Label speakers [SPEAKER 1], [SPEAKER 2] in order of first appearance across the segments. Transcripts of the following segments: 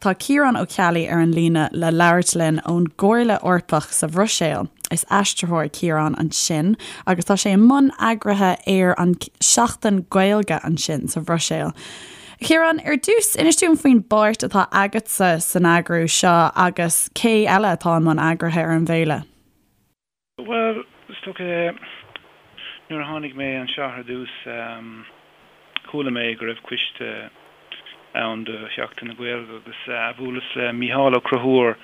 [SPEAKER 1] Tá Ciarán Ó Ceallaigh ar an líne le labhairt linn ón gComhairle Eorpach sa Bhruiséil. Is aistritheoir Ciarán ansin agus tá sé i mbun eagraithe ar an Seachtain Gaeilge ansin sa Bhruiséil. A Chiaráin, ar dtús, inis dúinn faoin bpáirt atá agatsa san eagrú seo agus cé eile atá i mbun eagraithe ar an bhféile?
[SPEAKER 2] Bhuel, is dócha, nuair a tháinig mé anseo ar dtús, chuala mé go raibh coiste ann do Sheachtain na Gaeilge agus bhuaileas le Mícheál Ó Conchúir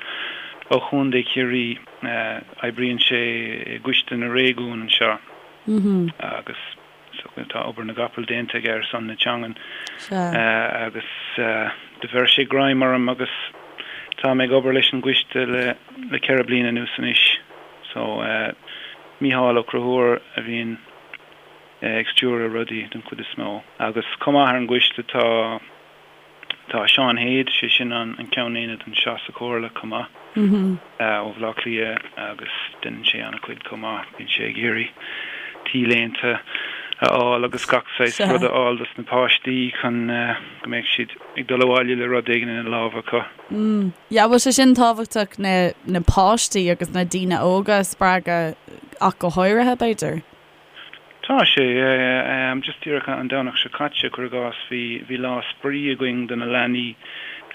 [SPEAKER 2] ó Chontae Chiarraí, oibríonn sé i gCoiste na Réigiún anseo agus Tá obair na gcapall déanta aige ar son na teangan agus do bheir sé greim orm agus tá mé ag obair leis an gcoiste le 4 bliana anuas anois. So, Mícheál Ó Conchúir a bhíonn ag stiúradh rudaí den chuid is mó. Agus chomh maith ar an gcoiste tá. Tá Seán Hade, sé sin an ceann aonaid anseo sa Chomhairle chomh maith, ó Bhaile Átha Cliath agus déanann sé an-chuid chomh maith. Bíonn sé ag iarraidh T-léinte a fháil agus gach saghas rud a fháil dos na páistí chun go mbeadh siad ag dul abhaile le rud éigin ina lámha acu.
[SPEAKER 1] Yeah, bhfuil sé sin tábhachtach na na páistí agus na daoine óga a spreagadh ach go háirithe, b'fhéidir?
[SPEAKER 2] Tá sé, yeah. Just díreach an Domhnach seo caite, cuir i gcás, bhí, bhí lá spraoi againn do na leanaí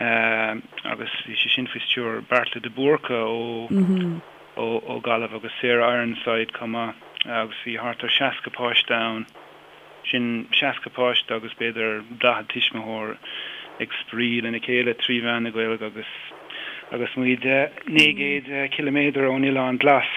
[SPEAKER 2] agus bhí sé sin faoi stiúir Beartla de Búrca ó, ó, ó Gaillimh agus Sarah Ironside chomh maith agus bhí thart ar 60 páiste ann. Sin 60 páiste agus b'fhéidir 40 tuismitheoir ag spraoi lena chéile trí mheán na Gaeilge agus agus muid 900 ciliméadar ón Oileán Glas.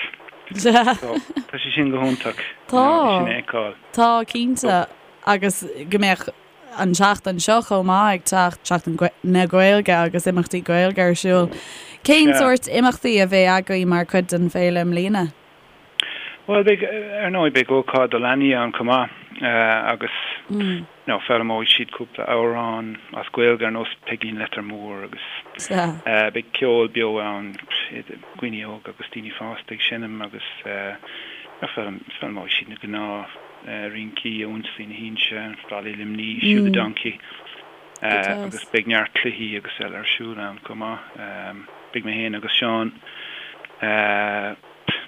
[SPEAKER 2] So, tá sé sin go hiontach, you know, é sin a fheiceáil.
[SPEAKER 1] Tá, cinnte. Agus go mbeadh an tseachtain seo chomh maith ag teacht, Seachtain na Gaeilge agus imeachtaí Gaeilge ar siúl. Cén sórt imeachtaí a bheidh agaibh mar chuid den bhféile i mbliana?
[SPEAKER 2] Bhuel, beidh, ar ndóigh, beidh ócáid do leanaí ann chomh maith agus, you know, foghlaimeoidh siad cúpla amhrán as Gaeilge ar nós Peigín Leitir Móir agus beidh ceol beo ann, daoine óga agus daoine fásta ag seinm agus foghlaimeoidh siad na gnáth rincí, Ionsaí na hInse, Rally Luimní, Shoe the Donkey agus beidh neart cluichí agus eile ar siúl ann chomh maith. Beidh mé féin agus Seán.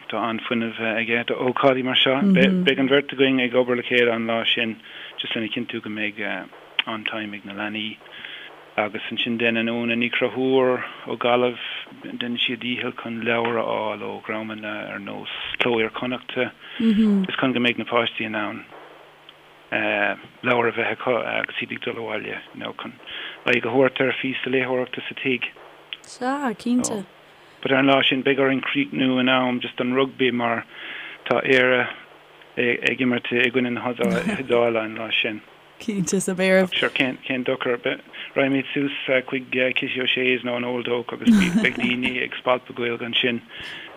[SPEAKER 2] Tá an-fhuinneamh aige do ócáidí mar seo. Beidh an bheirt againn ag obair le chéile an lá sin just lena chinntiú go mbeidh an-time ag na leanaí. Agus ansin déanann Úna Ní Chonchúir ó Ghaillimh, déanann sí a dícheall chun leabhair a fháil ó dhreamanna ar nós Cló Iar-Chonnachta just chun go mbeidh na páistí in ann leabhair a bheith acu agus iad ag dul abhaile, you know, chun aghaidh a thabhairt ar phíosa léitheoireachta sa tigh.
[SPEAKER 1] Sea, cinnte.
[SPEAKER 2] But ar an lá sin beidh orainn críochnú in am just don rugbaí mar tá Éire ag imirt i gcoinne na hIodáile an lá sin.
[SPEAKER 1] Cinnte, so beidh oraibh.
[SPEAKER 2] Ach sure, cén, cén dochar. Raghaimid suas chuig Kitty O'Shea's nó an Old Oak agus beidh daoine ag spalpadh Gaeilge ansin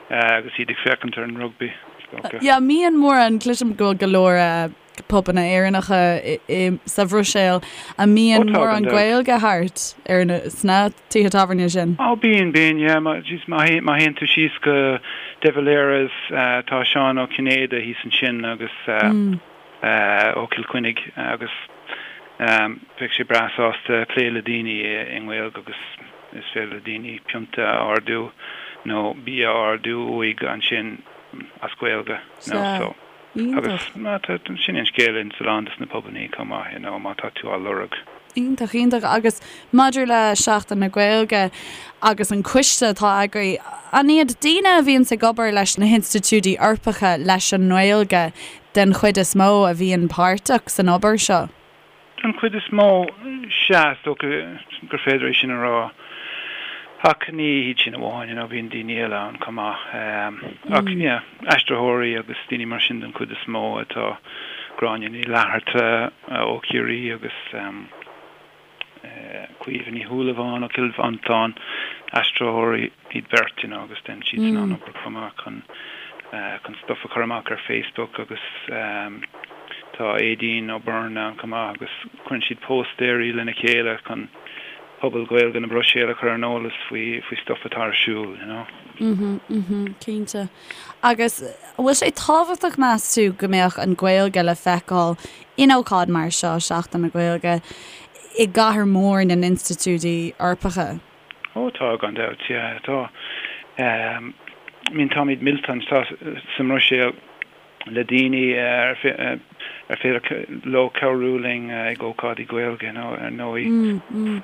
[SPEAKER 2] agus iad ag féachaint ar an rugbaí, is
[SPEAKER 1] dócha. Yeah, mbíonn mórán, cloisim go bhfuil go leor pubanna Éireannacha sa Bhruiséil, an mbíonn mórán Gaeilge thart ar na, sna tithe tábhairne sin?
[SPEAKER 2] Ó bíonn, bíonn, yeah. Má, jeez, má théann tú síos go De Valera's, tá Seán Ó Cinnéide thíos ansin agus ó Chill Chainnigh agus bheadh sé breá sásta plé le daoine i nGaeilge agus is féidir le daoine pionta a ordú nó bia a ordú uaidh ansin as Gaeilge, you know, so. Agus sin é an scéal ins a lán dos na pubannaí chomh maith, you know, má tá tú á lorg.
[SPEAKER 1] Iontach, iontach. Agus maidir le Seachtain na Gaeilge agus an coiste atá agaibh, an iad daoine a bhíonns ag obair leis na hinstitiúidí Eorpacha leis an nGaeilge den chuid is mó a bhíonn páirteach san obair seo?
[SPEAKER 2] Den chuid is mó, sea, is dócha gur féidir é sin a rá. Ach ní hiad sin amháin, you know, bíonn daoine eile ann chomh maith. Ach, yeah, aistritheoirí agus daoine mar sin den chuid is mó atá, Gráinne Ní Fhlatharta ó Chiarraí agus Caoimhe Ní Shúilleabháin ó Chill Mhantáin, aistritheoirí iad beirt, you know, agus déanann siadsan an-obair chomh maith chun chun stuff a chur amach ar Facebook agus tá Aideen O'Byrne ann chomh maith agus cuireann siad póstaeirí lena chéile chun pobal Gaeilge na Bruiséile a chur ar an eolas faoi faoi stuff atá ar siúl, you know.
[SPEAKER 1] Mhm, mhm, cinnte. Agus an bhfuil sé tábhachtach meas tú go mbeadh an Ghaeilge le feiceáil in ócáid mar seo, Seachtain na Gaeilge, i gcathair mhór na n-institiúidí Eorpacha?
[SPEAKER 2] Ó tá, gan dabht, yeah, tá. I mean táimid millte anseo sa mBruiséil le daoine ar féidir leo cabhrú linn ag ócáidí Gaeilge, you know, ar ndóigh.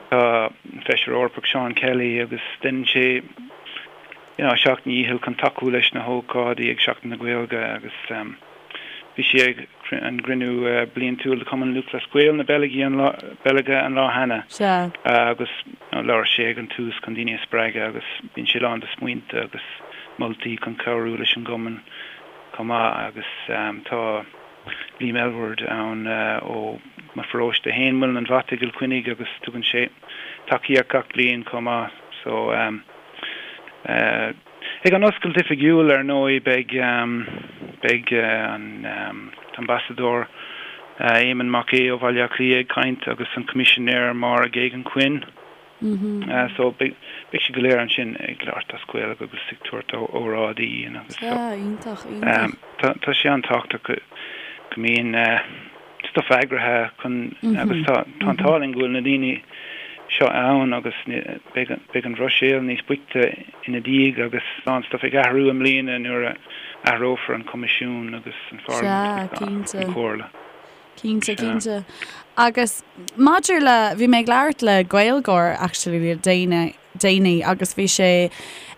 [SPEAKER 2] Tá an Feisire Eorpach Seán Kelly agus déanann sé, you know, a sheacht ndícheall chun tacú leis na hócáidí ag Seachtain na Gaeilge agus bhí sé ag an gcruinniú bliantúil de Chumann Lúthchleas Gael na Beilge an lá cheana agus labhair sé ag an tús chun daoine a spreagadh agus bíonn sé lán de smaointe agus moltaí chun cabhrú leis an gcumann chomh maith agus tá Liam Aylward ann ó mo pharóiste féin, Muileann an Bhata i gCill Chainnigh agus tugann sé tacaíocht gach bliain chomh maith so ag an oscailt oifigiúil ar ndóigh beidh beidh an tAmbasadóir Éamonn Mac Aodha ó Bhaile Átha Cliath ag caint agus an Coimisinéir Máire Geoghegan Quinn. So beidh siad go léir ansin ag labhairt as Gaeilge agus ag tabhairt óráidí agus so.
[SPEAKER 1] Sea, iontach, iontach.
[SPEAKER 2] Tá tá sé an-tábhachtach go go mbíonn stuff eagraithe chun agus tá tá an t-ádh linn go bhfuil na daoine seo ann agus beidh beidh an Bhruiséil níos boichte ina diaidh agus tá an stuff ag athrú i mbliana nuair a athrófar an Coimisiún agus an
[SPEAKER 1] Pharlaimint
[SPEAKER 2] agus an Chomhairle.
[SPEAKER 1] Cinnte, cinnte. Agus maidir le, bhí mé ag labhairt le Gaeilgeoir actually le déanaí, déanaí agus bhí sé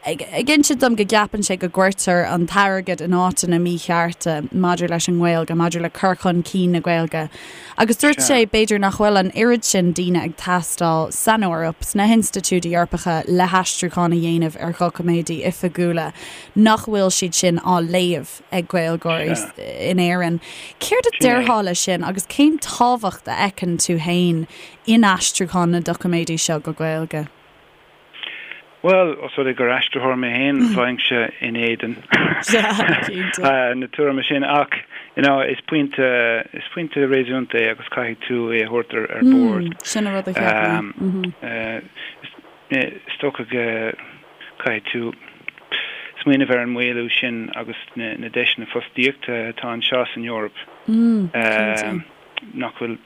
[SPEAKER 1] ag, ag insint dom go gceapann sé go gcuirtear an t-airgead in áiteanna míchearta maidir leis an nGaeilge, maidir le cur chun cinn na Gaeilge. Agus dúirt sé b'fhéidir nach bhfuil an oiread sin daoine ag teastáil san Eoraip, sna hinstitiúidí Eorpacha le haistriúchán a dhéanamh ar dhoiciméidí oifigiúla, nach bhfuil siad sin á léamh. ag Gaeilgeoirí in Éirinn. Céard a déarfá leis sin agus cén tábhacht a fheiceann tú féin in aistriúchán na doiciméidí seo go Gaeilge?
[SPEAKER 2] Bhuel, os rud é gur aistritheoir mé féin, bheinnse in éadan na tuairime sin ach you know, is pointe, is pointe réasúnta é agus caithfidh tú é a thabhairt ar ar bord.
[SPEAKER 1] Sin an rud a cheap
[SPEAKER 2] mé. Is dócha go Caithfidh tú smaoineamh ar an maolú sin agus na deiseanna fostaíochta atá anseo san Eoraip nach bhfuil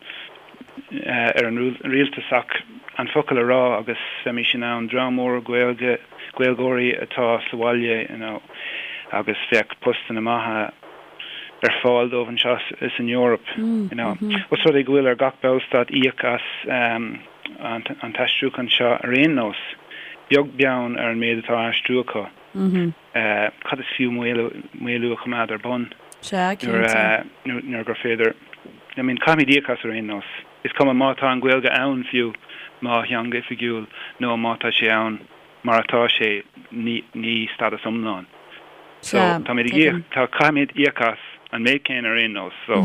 [SPEAKER 2] ar an rialtas ach an focal a rá agus bheimis in ann dream mór Gaeilge, Gaeilgeoirí atá sa bhaile you know agus bheadh postanna maithe ar fáil dóibh anseo san Eoraip you know. Os rud é go bhfuil ar gach ballstát íoc as an t-aistriúchán seo ar aon nós, beag beann ar an méid atá á aistriú acu. Cad is fiú maolú a choimeád ar bun nuair gur féidir, I mean, caithfimid íoc as ar aon nós. Is cuma má tá an Ghaeilge ann fiú mar theanga oifigiúil nó má tá sé ann mar atá sé, ní stádas iomlán. So, táimid ag íoc, tá, caithfimid íoc as an méid céanna ar aon nós, so.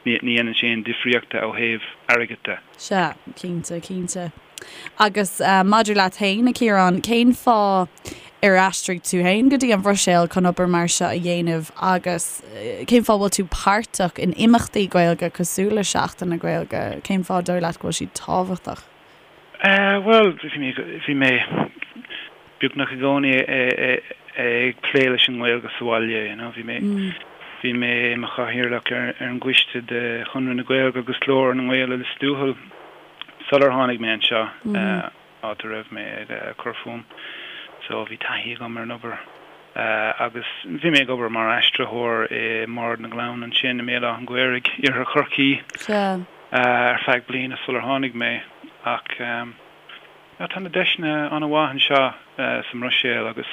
[SPEAKER 2] Ní dhéanann sé aon difríochta ó thaobh airgid de.
[SPEAKER 1] Sea, cinnte, cinnte. Agus maidir leat féin, a Chiaráin, cén fáth ar aistrigh tú féin go dtí an Bhruiséil chun obair mar seo a dhéanamh agus cén fáth a bhfuil tú páirteach in imeachtaí Gaeilge cosúil le Seachtain na Gaeilge? Cén fáth dóigh leat go bhfuil siad tábhachtach?
[SPEAKER 2] Bhuel, bhí mé beagnach i gcónaí ag plé leis an nGaeilge sa bhaile, you know. Bhí mé, bhí mé i mo chathaoirleach ar an gcoiste de Chonradh na Gaeilge agus Glór na nGael i Lios Tuathail sular tháinig mé anseo, áit a raibh mé ag cur fúm. So bhí taithí agam ar an obair agus bhí mé ag obair mar aistritheoir i mBord na nGleann ansin i mBéal Átha an Ghaorthaidh, Iarthar Chorcaí. ar feadh bliana sular tháinig mé ach tá na deiseanna an-mhaith anseo sa mBruiséil agus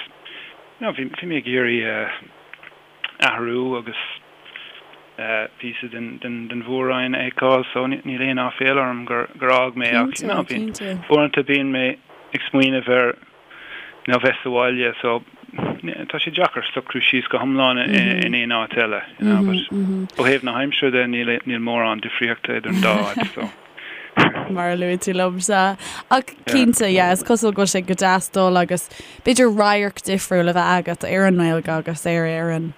[SPEAKER 2] you know bhí mé ag iarraidh athrú agus píosa den mhór-roinn a fheiceáil so níl aon áiféala orm gur fhág mé ach you know uaireanta bíonn mé ag smaoineamh ar nó bheith sa bhaile so tá sé deacair socrú síos go hiomlán in aon áit eile you know but ó thaobh na haimsire de níl níl mórán difríochta idir an dá áit so.
[SPEAKER 1] Mar a luaigh tú liom sea. Ach cinnte yeah is cosúil go bhfuil sé go deas dul agus b'fhéidir radharc difriúil a bheith agat ar an nGaeilge agus ar Éirinn.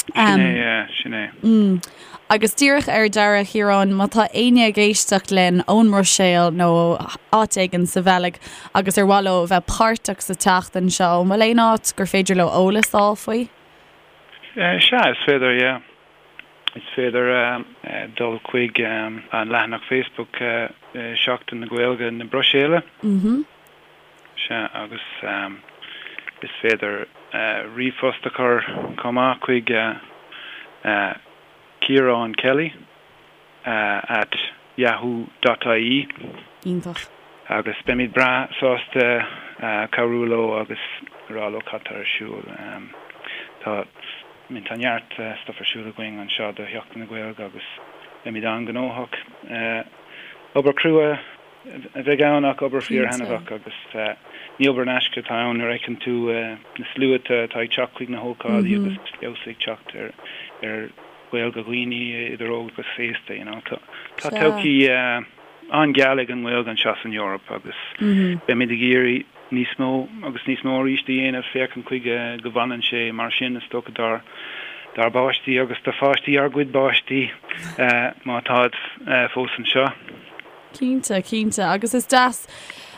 [SPEAKER 2] Sin é, yeah, sin é.
[SPEAKER 1] Mm. Agus díreach ar deireadh, Chiaráin, má tá éinne ag éisteacht linn ón mBruiséil nó áit éigin sa Bheilg agus ar mhaith leo bheith páirteach sa tseachtain seo, an bhfuil aon áit gur féidir leo eolas a fháil faoi?
[SPEAKER 2] Sea, is féidir, yeah. Is féidir dul chuig an leathanach Facebook Seachtain na Gaeilge na Bruiséile. Sea, agus is féidir ríomhphost a chur chomh maith chuig Ciarán Kelly at yahoo dot ie.
[SPEAKER 1] Iontach.
[SPEAKER 2] Agus beimid breá sásta cabhrú leo agus rá leo cad tá ar siúl. Tá, I mean, tá neart stuff ar siúl againn anseo do Sheachtain na Gaeilge agus beimid an-ghnóthach. Obair chrua a bheidh ann ach obair fíor-thaitneamhach agus ní obair in aisce atá ann nuair a fheiceann tú na sluaite atá ag teacht chuig na hócáidí agus feabhas ag teacht ar ar Ghaeilge dhaoine idir óg agus aosta, you know. Tá todhchaí an-gheal ag an nGaeilge anseo san Eoraip agus beimid ag iarraidh níos mó agus níos mó arís a dhéanamh féachaint chuige go bhfanann sé mar sin is dócha dár dár bpáistí agus do pháistí ár gcuid bpáistí má táid fós anseo.
[SPEAKER 1] Cinnte, cinnte. Agus is deas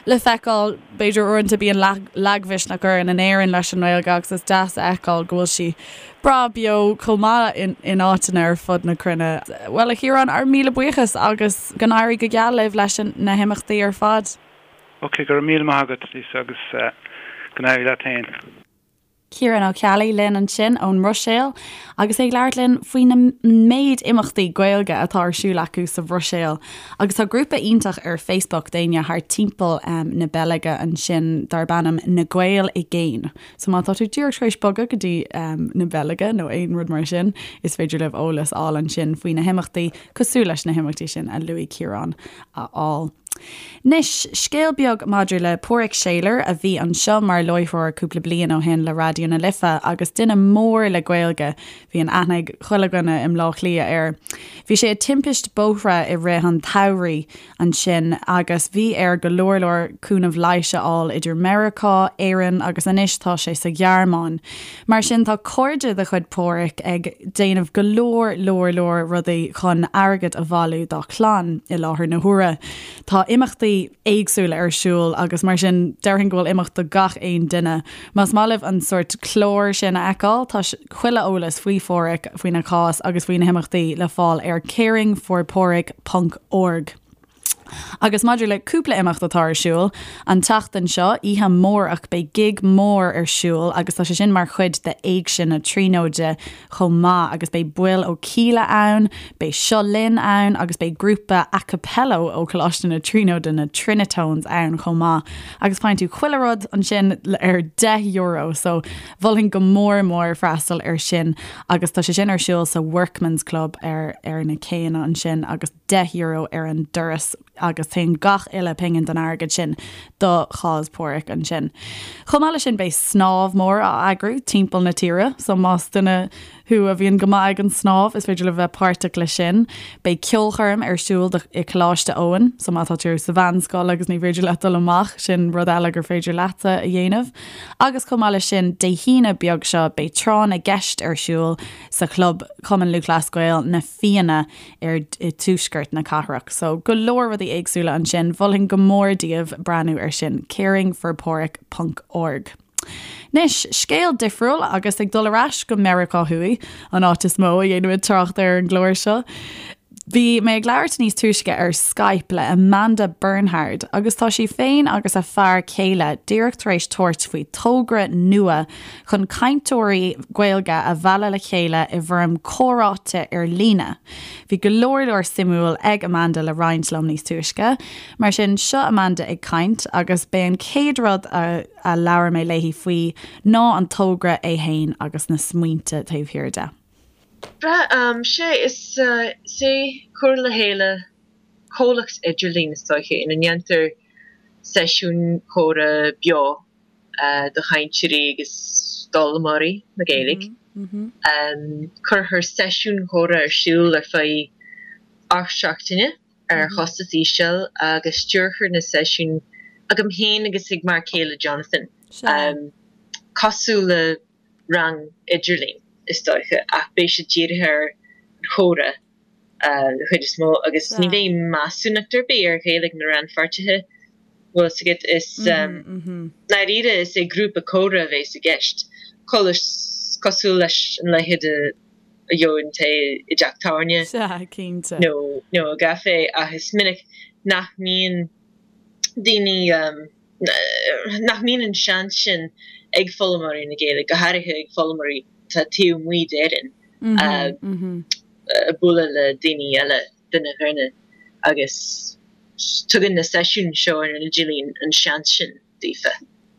[SPEAKER 1] le feiceáil, b'fhéidir uaireanta bíonn lagmhisneach orainn in Éirinn leis an nGaeilge agus is deas a fheiceáil go bhfuil sí breá beo chomh maith in áiteanna ar fud na cruinne. Bhuel, a Chiaráin, ár míle buíochas agus go n-éirí go geal libh leis na himeachtaí ar fad.
[SPEAKER 2] Ok, go raibh míle maith agat, Lisa, agus go n-éirí leat féin.
[SPEAKER 1] Ciarán Ó Ceallaigh linn ansin ón mBruiséil agus é ag labhairt linn faoi na méid imeachtaí Gaeilge atá ar siúl acu sa Bhruiséil. Agus tá grúpa iontach ar Facebook d'éinne thar timpeall na Beilge ansin darb ainm Na Gaeil i gCéin. So má tá tú díreach tar éis bogadh go dtí na Beilge nó aon rud mar sin, is féidir libh eolas a fháil ansin faoi na himeachtaí cosúil leis na himeachtaí sin a luaigh Ciarán a fháil. Anois, scéal beag maidir le Páraic Seylor, a bhí anseo mar láithreoir cúpla bliain ó shin le Raidió na Life agus duine mór le Gaeilge. Bhí an aithne ag chuile dhuine i mBleá Cliath air. Bhí sé i timpist bóithre i rith an tsamhraidh ansin agus bhí air go leor leor cúnamh leighis a fháil idir Meiriceá, Éirinn agus anois tá sé sa Ghearmáin. Mar sin tá cairde de chuid Páraic ag déanamh go leor leor leor rudaí chun airgead a bhailiú dá chlann i láthair na huaire. Tá imeachtaí éagsúla ar siúl agus mar sin déarfainn go bhfuil imeacht do gach aon duine. Más maith libh an sórt clár sin a fheiceáil, tá chuile eolas faoi Pháraic, faoina chás agus faoi na himeachtaí le fáil ar caringforpáraic ponc org. Agus maidir le cúpla imeacht atá ar siúl an tseachtain seo, oíche amárach beidh gig mór ar siúl agus tá sé sin mar chuid de Éigse na Tríonóide chomh maith agus beidh baill ó Kíla ann, beidh Seo Linn ann agus beidh grúpa a cappella ó Choláiste na Tríonóide, na Trinitones ann chomh maith. Agus faigheann tú chuile rud ansin ar €10 so mholfainn go mór mór freastal ar sin agus tá sé sin ar siúl sa Workman's Club ar ar na céanna ansin agus €10 ar an doras agus téann gach uile pingin den airgead sin do chás Páraic ansin. Chomh maith leis sin beidh snámh mór á eagrú timpeall na tíre so más duine thú a bhíonn go maith ag an snámh is féidir libh bheith páirteach leis sin. Beidh ceolchoirm ar siúl i Coláiste Eoin so má tá tú sa mheánscoil agus ní féidir leat dul amach sin rud eile gur féidir leatsa a dhéanamh. Agus chomh maith leis sin Dé hAoine beag seo beidh tráth na gceist ar siúl sa chlub Cumann Lúthchleas Gael na Fianna ar i dtuaisceart na cathrach. So go leor rudaí éagsúla ansin, mholfainn go mór daoibh breathnú ar sin, caringforpáraic ponc org. Anois, scéal difriúil agus ag dul ar ais go Meiriceá Thuaidh, an áit is mó a dhéanaimid trácht ar an gclár seo. Bhí mé ag labhairt níos túisce ar Skype le Amanda Bernhard agus tá sí féin agus a fear céile díreach tar éis tabhairt faoi togra nua chun cainteoirí Gaeilge a mhealladh le chéile i bhfoirm comhráite ar líne. Bhí go leor leor suimiúil ag Amanda le roinnt liom níos túisce. Mar sin, seo Amanda ag caint agus b'é an chéad rud a a labhair mé léi faoi ná an togra é fhéin agus na smaointe taobh thiar de.
[SPEAKER 3] Breá, sea, is é cur le chéile comhlacht idirlín, is dóiche, ina ndéantar seisiúin chomhrá beo do chainteoirí agus d'fhoghlaimeoirí na Gaeilge. Cuirfear seisiúin chomhrá ar siúl ar feadh 8 seachtaine ar chostas íseal agus stiúrfar na seisiúin agam féin agus ag m'fhear céile Jonathan, cosúil le rang idirlín is dóiche ach beidh siad dírithe ar an chomhrá. den chuid is mó agus ní bheidh measúnacht ar bith ar Ghaeilge na rannpháirtithe, bhfuil fhios agat. Is ndáiríre is é grúpa comhrá a bheas i gceist, cosúil leis an leithéid a gheobhann tú i dteach tábhairne nó i gcaifé ach is minic nach mbíonn daoine. Nach mbíonn an seans sin ag foghlaimeoirí na Gaeilge, go háirithe ag foghlaimeoirí atá taobh amuigh d'Éirinn, bualadh le daoine eile, duine ar dhuine, agus tugann na seisiúin seo ar an idirlíon an seans sin daofa.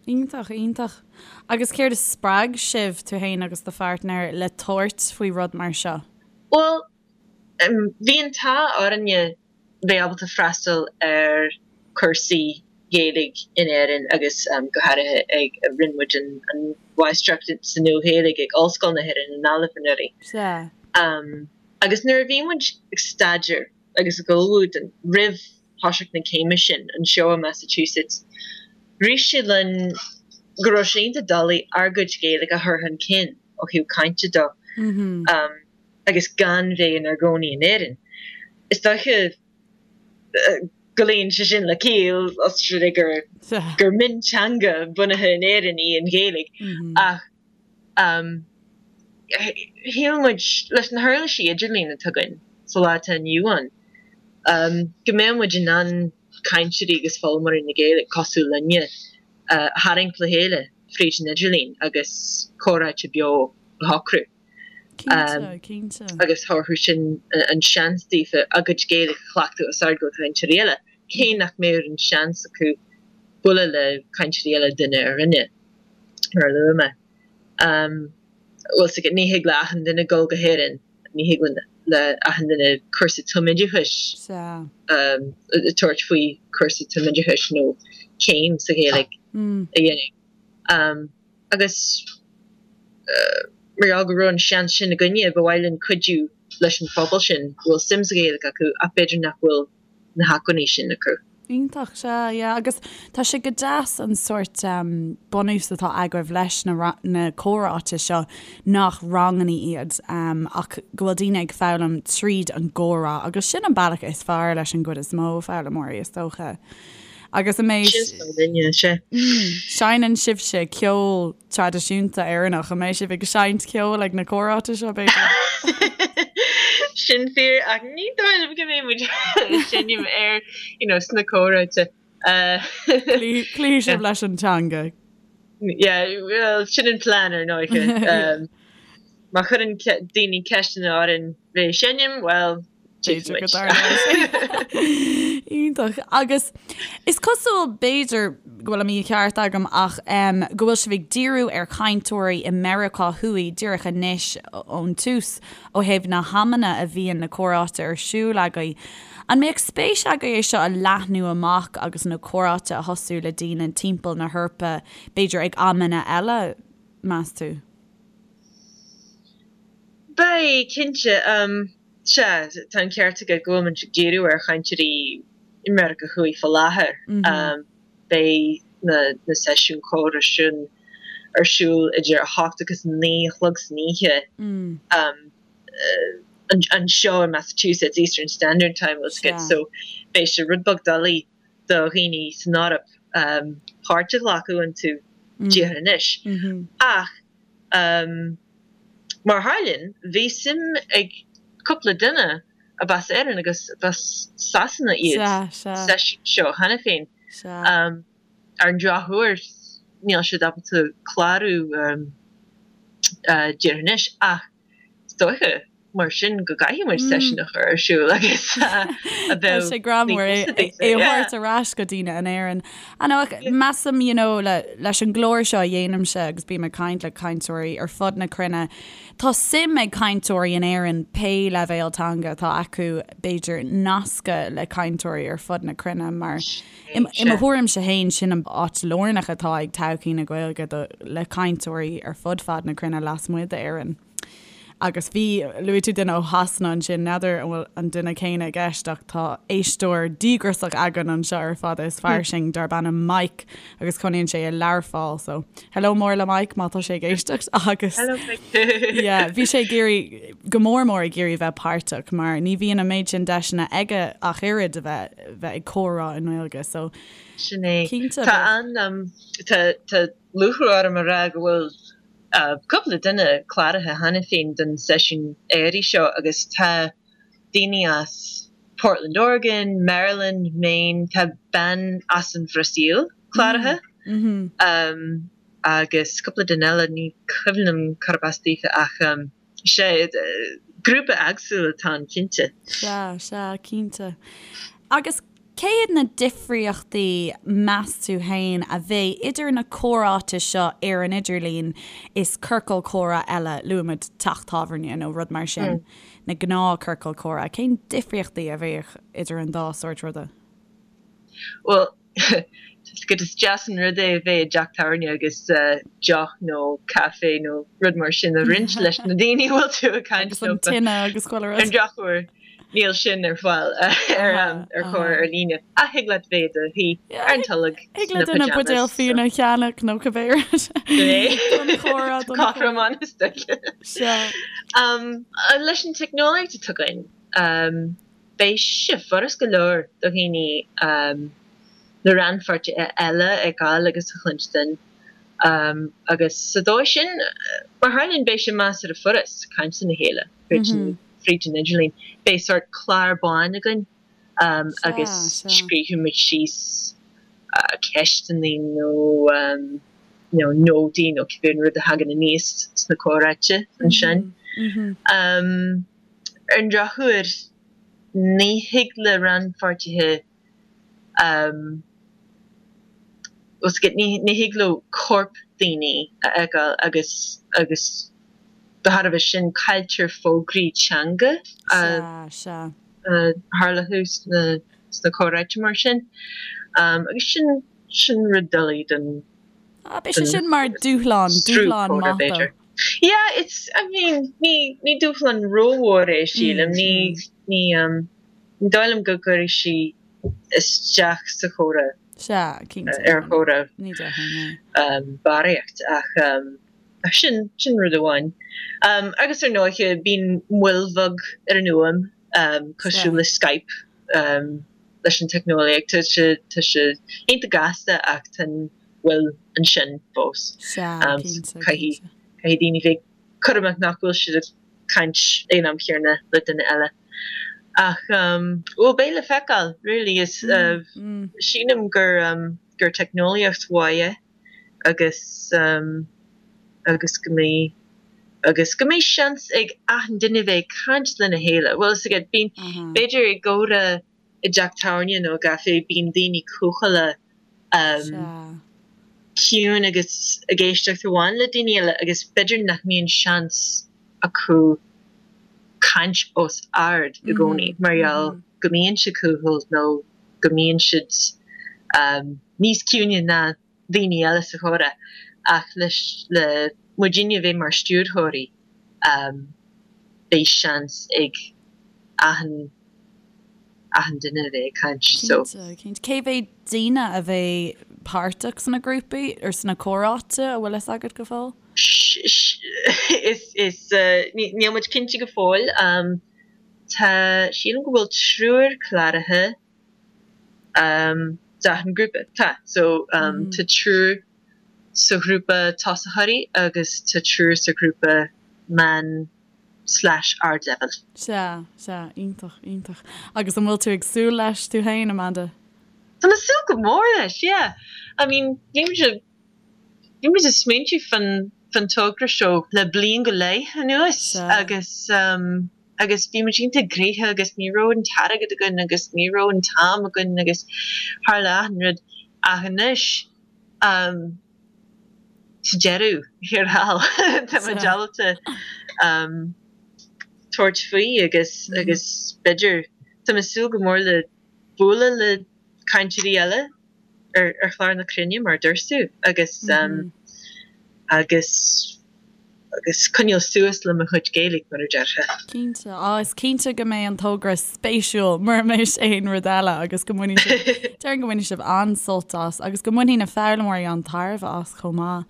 [SPEAKER 1] Iontach, iontach. Agus céard a spreag sibh, tú féin agus do pháirtnéir, le tabhairt faoi rud mar seo?
[SPEAKER 3] Bhuel, bhí an t-ádh orainne bheith ábalta freastal ar chúrsaí Gaeilge in Éirinn agus go háirithe ag, rinne muid an Mháistreacht sa Nua-Ghaeilge ag Ollscoil na hÉireann i nGaillimh anuraidh.
[SPEAKER 1] Sea.
[SPEAKER 3] Agus nuair a bhí muid ag staidéar agus ag ullmhú don, roimh thoiseacht na céime sin anseo i Massachusetts, rith sé linn go raibh sé iontach doiligh ár gcuid Gaeilge a chur chun cinn ó thaobh cainte de. agus gan bheith inár gcónaí in Éirinn. Is dóiche go luíonn sé sin le ciall, os rud é gur gur mionteanga bunaithe in Éirinn í an Ghaeilge, ach shíl muid, leis na huirlisí idirlín atá againn sa lá atá inniu ann, go mbeadh muid in ann cainteoirí agus foghlaimeoirí na Gaeilge cosúil linne a tharraingt le chéile fríd an idirlíon agus comhráite beo a shocrú.
[SPEAKER 1] Cinnte, cinnte.
[SPEAKER 3] Agus thabharfadh sin an seans daofa a gcuid Gaeilge a chleachtadh os ard go cainteoirí eile, cé nach mbeadh an seans acu bualadh le cainteoirí eile duine ar dhuine, mar a luaigh mé. Bhfuil 's agat, ní thig le achan duine dul go hÉirinn, ní thig le achan duine cúrsa tumoideachais tabhairt faoi chúrsa tumoideachais nó céim sa Ghaeilge a dhéanamh. Agus mar gheall go raibh an seans sin againne, ba mhaith linn cuidiú leis an phobal sin go bhfuil suim sa Ghaeilge acu ach b'fhéidir nach bhfuil na hacmhainní sin acu.
[SPEAKER 1] Iontach, sea, yeah. Agus tá sé go deas an sórt bunús atá agaibh leis na na comhráite seo nach ranganna iad ach go bhfuil daoine ag foghlaim tríd an gcomhrá agus sin an bealach is fearr leis an gcuid is mó foghlaimeoirí is dócha. Agus an mbeidh.
[SPEAKER 3] Sin is duine, sea.
[SPEAKER 1] Seinneann sibhse ceol traidisiúnta Éireannach, an mbeidh sibh ag seinnt ceoil ag na comhráite seo, b'fhéidir?
[SPEAKER 3] Sin fíor, ach ní dóigh liom go mbeidh muid ag seinm ar, you know, sna comhráite.
[SPEAKER 1] Cloífidh sibh leis an teanga.
[SPEAKER 3] Yeah, well, sin an plean ar ndóigh. Má chuireann daoine ceisteanna orainn bheith ag seinm, well,
[SPEAKER 1] B'fhéidir go dtarlóidh sé. Iontach. Agus is cosúil, b'fhéidir go bhfuil an mícheart agam, ach go bhfuil sibh ag díriú ar chainteoirí i Meiriceá Thuaidh díreach anois ón tús ó thaobh na hamanna a bhíonn na comhráite ar siúl agaibh. An mbeadh spéis agaibh é seo a leathnú amach agus na comhráite a thosú le daoine timpeall na hEorpa, b'fhéidir ag amanna eile, meas tú?
[SPEAKER 3] Beidh, cinnte. Sea, tá an ceart agat go bhfuil muid ag díriú ar chainteoirí i Meiriceá Thuaidh faoi láthair. Beidh na seisiúin chomhrá sin ar siúl idir 8 agus 9 a chlog san oíche anseo i Massachusetts, Eastern Standard Time, bhfuil 's agat, so beidh sé rud beag doiligh do dhaoine san Eoraip páirt a ghlacadh iontu díreach anois. Ach. Mar a tharlaíonn, bhí suim ag cúpla duine ab as Éirinn agus ab as Sasana iad sa seisiún seo cheana féin. Ar an drochuair, níl siad ábalta clárú díreach anois ach Is dóiche, mar sin, go gcaithfidh muid seisiún a chur ar siúl agus a
[SPEAKER 1] bheadh Tá sé greannmhar é a thabhairt ar ais go daoine in Éirinn. I know, measaim, you know, le, leis an gclár seo a dhéanaimse agus bím ag caint le cainteoirí ar fud na cruinne, tá suim ag cainteoirí in Éirinn pé leibhéal teanga atá acu, b'fhéidir, nascadh le cainteoirí ar fud na cruinne mar I mo thuairimse féin, sin an áit lárnach atá ag todhchaí na Gaeilge do le cainteoirí ar fud fad na cruinne lasmuigh d'Éirinn. Agus bhí, luaigh tú duine ó Shasana ansin, n'fheadar an bhfuil an duine céanna i gceist ach tá éisteoir díograiseach againn anseo ar Fada is Fairsing darb ainm Mike agus cónaíonn sé i Learpholl so hello mór le Mike má tá sé ag éisteacht agus
[SPEAKER 3] Hello Mike.
[SPEAKER 1] yeah, bhí sé ag iarraidh go mór mór ag iarraidh bheith páirteach mar ní bhíonn an méid sin deiseanna aige ach oiread a bheith bheith ag comhrá i nGaeilge so
[SPEAKER 3] Sin é.
[SPEAKER 1] cinnte
[SPEAKER 3] Tá an, tá, tá lúcháir orm a rá go bhfuil cúpla duine cláraithe cheana féin don seisiún earraigh seo agus tá daoine as Portland, Oregon, Maryland, Maine, tá bean as an Bhrasaíl. cláraithe agus cúpla duine eile, ní cuimhin liom cárb as daofa ach sea, grúpa éagsúil atá ann cinnte.
[SPEAKER 1] Sea, sea, cinnte. Agus cé hiad na difríochtaí, meas tú féin, a bheidh idir na comhráite seo ar an idirlíon is ciorcal comhrá eile, luaimid teach tábhairne nó rud mar sin, na gnáth-chiorcail comhrá, cén difríochtaí a bheadh idir an dá sórt ruda?
[SPEAKER 3] Bhuel, is deas an rud é a bheith i dteach tábhairne agus deoch nó caife nó rud mar sin a roinnt leis na daoine a bhfuil tú ag caint
[SPEAKER 1] Agus an tine agus chuile
[SPEAKER 3] rud. Ar an drochuair, níl sin ar fáil ar chomhrá ar líne. Ach thig leat bheith i do shuí ar an tolg
[SPEAKER 1] Thig le duine buidéal fíona a cheannach nó cibé rud.
[SPEAKER 3] Don chomhrá, don chomhrá. Cothromán is dócha.
[SPEAKER 1] Sea.
[SPEAKER 3] Leis an teicneolaíocht atá againn, Beidh sé furast go leor do dhaoine na rannpháirtithe eile a fheiceáil agus a chluinstin agus sa dóigh sin, mar tharlaíonn, beidh sé measartha furast caint lena chéile fríd an idirlíon. Beidh sórt clár bán againn agus scríobfaidh muid síos ceisteanna nó nótaí nó cibé rud a thagann aníos sna comhráite ansin. Ar an drochuair, ní thig le rannpháirtithe, ní thig leo coirp daoine a fheiceáil agus agus de thairbhe sin cailltear fógraí teanga a tharlódh sna comhráite mar sin agus sin sin rud doiligh don
[SPEAKER 1] Beidh sé sin mar dúshlán, dúshlán maith dó.
[SPEAKER 3] Yeah, it's, I mean, ní, ní dúshlán rómhór é, sílim. Ní, ní, ní dóigh liom go gcuirfidh sí isteach sa chomhrá.
[SPEAKER 1] Sea, cinnte.
[SPEAKER 3] Ar chomhrá.
[SPEAKER 1] Ní déarfainn, é.
[SPEAKER 3] Barraíocht, ach, ach sin, sin rud amháin. Agus ar ndóiche, bíonn moill bheag ar an fhuaim, cosúil le Skype, leis an teicneolaíocht. Tá sé, tá sé iontach gasta ach tá an mhoill ansin fós.
[SPEAKER 1] Sea, cinnte,
[SPEAKER 3] Caithfidh, cinnte. caithfidh daoine bheith cúramach nach bhfuil siad ag caint ag an am chéanna le duine eile. Ach, bhuel, beidh le feiceáil, really. Is, sílim gur, gur teicneolaíocht mhaith é agus, agus go mbeidh, agus go mbeidh seans ag achan duine bheith ag caint lena chéile. Bhfuil a fhios agat, bíonn, b'fhéidir i gcomhrá i dteach tábhairne nó i gcaifé, bíonn daoine cúthaileach, ciúin agus ag éisteacht amháin le daoine eile agus b'fhéidir nach mbíonn seans acu caint os ard i gcónaí mar gheall go mbíonn siad cúthail nó go mbíonn siad níos ciúine ná daoine eile sa chomhrá ach leis le muidinne a bheith mar stiúrthóirí beidh seans ag achan achan duine a bheith ag caint so.
[SPEAKER 1] Cinnte, cinnte. Cé mhéad daoine a bheidh páirteach sna grúpaí or sna comhráite, an bhfuil fhios agat go fóill?
[SPEAKER 3] Is, is, níl muid cinnte go fóill. Tá, sílim go bhfuil triúr cláraithe d'achan grúpa. Tá, so tá triúr sa ghrúpa tosaitheoirí agus tá triúr sa ghrúpa meán slash ardleibhéal.
[SPEAKER 1] Sea, sea, iontach, iontach. Agus an bhfuil tú ag súil leis tú féin, Amanda?
[SPEAKER 3] Tá mé ag súil go mór leis, yeah. I mean, bhí muid ag, bhí muid ag smaointiú fán, fán togra seo le bliain go leith anuas agus um, agus bhí muid iontach gnoitheach agus ní raibh an t-airgead againn agus ní raibh an t-am againn agus tharla achan rud ach anois um, sa deireadh thiar thall tá muid ábalta tabhairt faoi agus agus b'fhéidir tá mé ag súil go mór le bualadh le cainteoirí eile ar ar chlár na cruinne mar a dúirt tú agus agus agus coinneáil suas le mo chuid Gaeilge mar a déarfá.
[SPEAKER 1] Cinnte. Á, is cinnte go mbeidh an togra spéisiúil mura mbeidh sé aon rud eile agus go mbainfidh sibh, déarfainn go mbainfidh sibh an-sult as agus go mbainfidh na foghlaimeoirí an-tairbhe as chomh maith.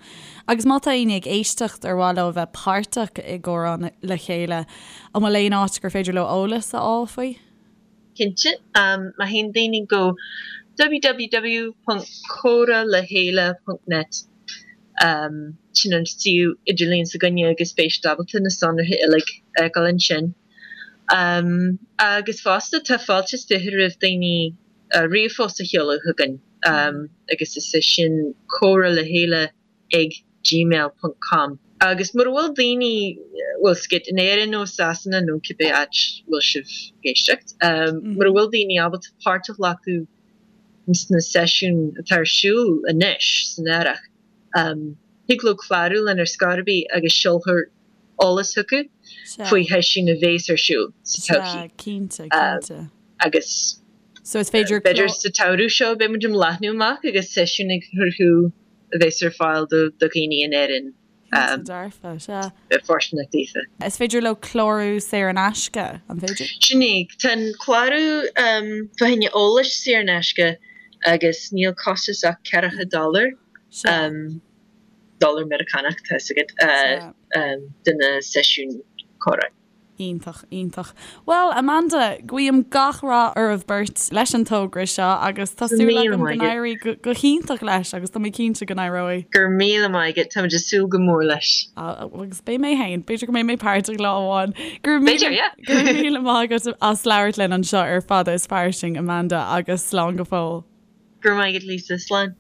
[SPEAKER 1] Agus má tá éinne ag éisteacht ar mhaith leo a bheith páirteach i gComhrá le Chéile, an bhfuil aon áit gur féidir leo eolas a fháil faoi?
[SPEAKER 3] Cinnte. Má théann daoine go www.comhralechéile.net, sin an suíomh idirlín s'againne agus beidh siad ábalta na sonraithe uilig a fheiceáil ansin. Agus fosta, tá fáilte is 20 roimh daoine ríomhphost a sheoladh chugainn. agus is é sin comhrá le chéile ag gmail ponc com. Agus mura bhfuil daoine, bhfuil 's agat, in Éirinn nó i Sasana nó cibé áit a bhfuil sibh ag éisteacht, mura bhfuil daoine ábalta páirt a ghlacadh sna seisiúin atá ar siúl anois san earrach, thig leo clárú linn ar scor ar bith agus seolfar eolas chucu faoi sheisiúin a bhéas ar siúl sa todhchaí.
[SPEAKER 1] Sea, cinnte, cinnte.
[SPEAKER 3] Agus
[SPEAKER 1] So is féidir
[SPEAKER 3] b'fhéidir sa tsamhradh seo beidh muid ag leathnú amach agus seisiúin ag cruthú a bheas ar fáil do dhaoine in Éirinn.
[SPEAKER 1] Cinnte dearfa, sea.
[SPEAKER 3] Bheith fóirsteanach daofa.
[SPEAKER 1] Is féidir leo clárú saor in aisce, an féidir?
[SPEAKER 3] Sin é. Tá an clárú fá choinne eolais saor in aisce agus níl costas ach ceathracha dollar, dollar Meiriceánach, tá 'fhios agat, do na seisiúin comhrá.
[SPEAKER 1] Iontach, iontach. Bhuel, Amanda, guím gach rath oraibh beirt leis an togra seo agus tá súil agam go n-éirí go hiontach leis agus tá mé cinnte go n-éireoidh.
[SPEAKER 3] Go raibh míle maith agat, táimid ag súil go mór leis.
[SPEAKER 1] Agus beidh mé féin, b'fhéidir go mbeidh mé páirteach lá amháin. Go
[SPEAKER 3] raibh míle, yeah.
[SPEAKER 1] Go raibh míle maith agat as labhairt linn anseo ar Fada is Fairsing, Amanda, agus slán go fóill.
[SPEAKER 3] Go raibh maith agat, Lisa. Slán.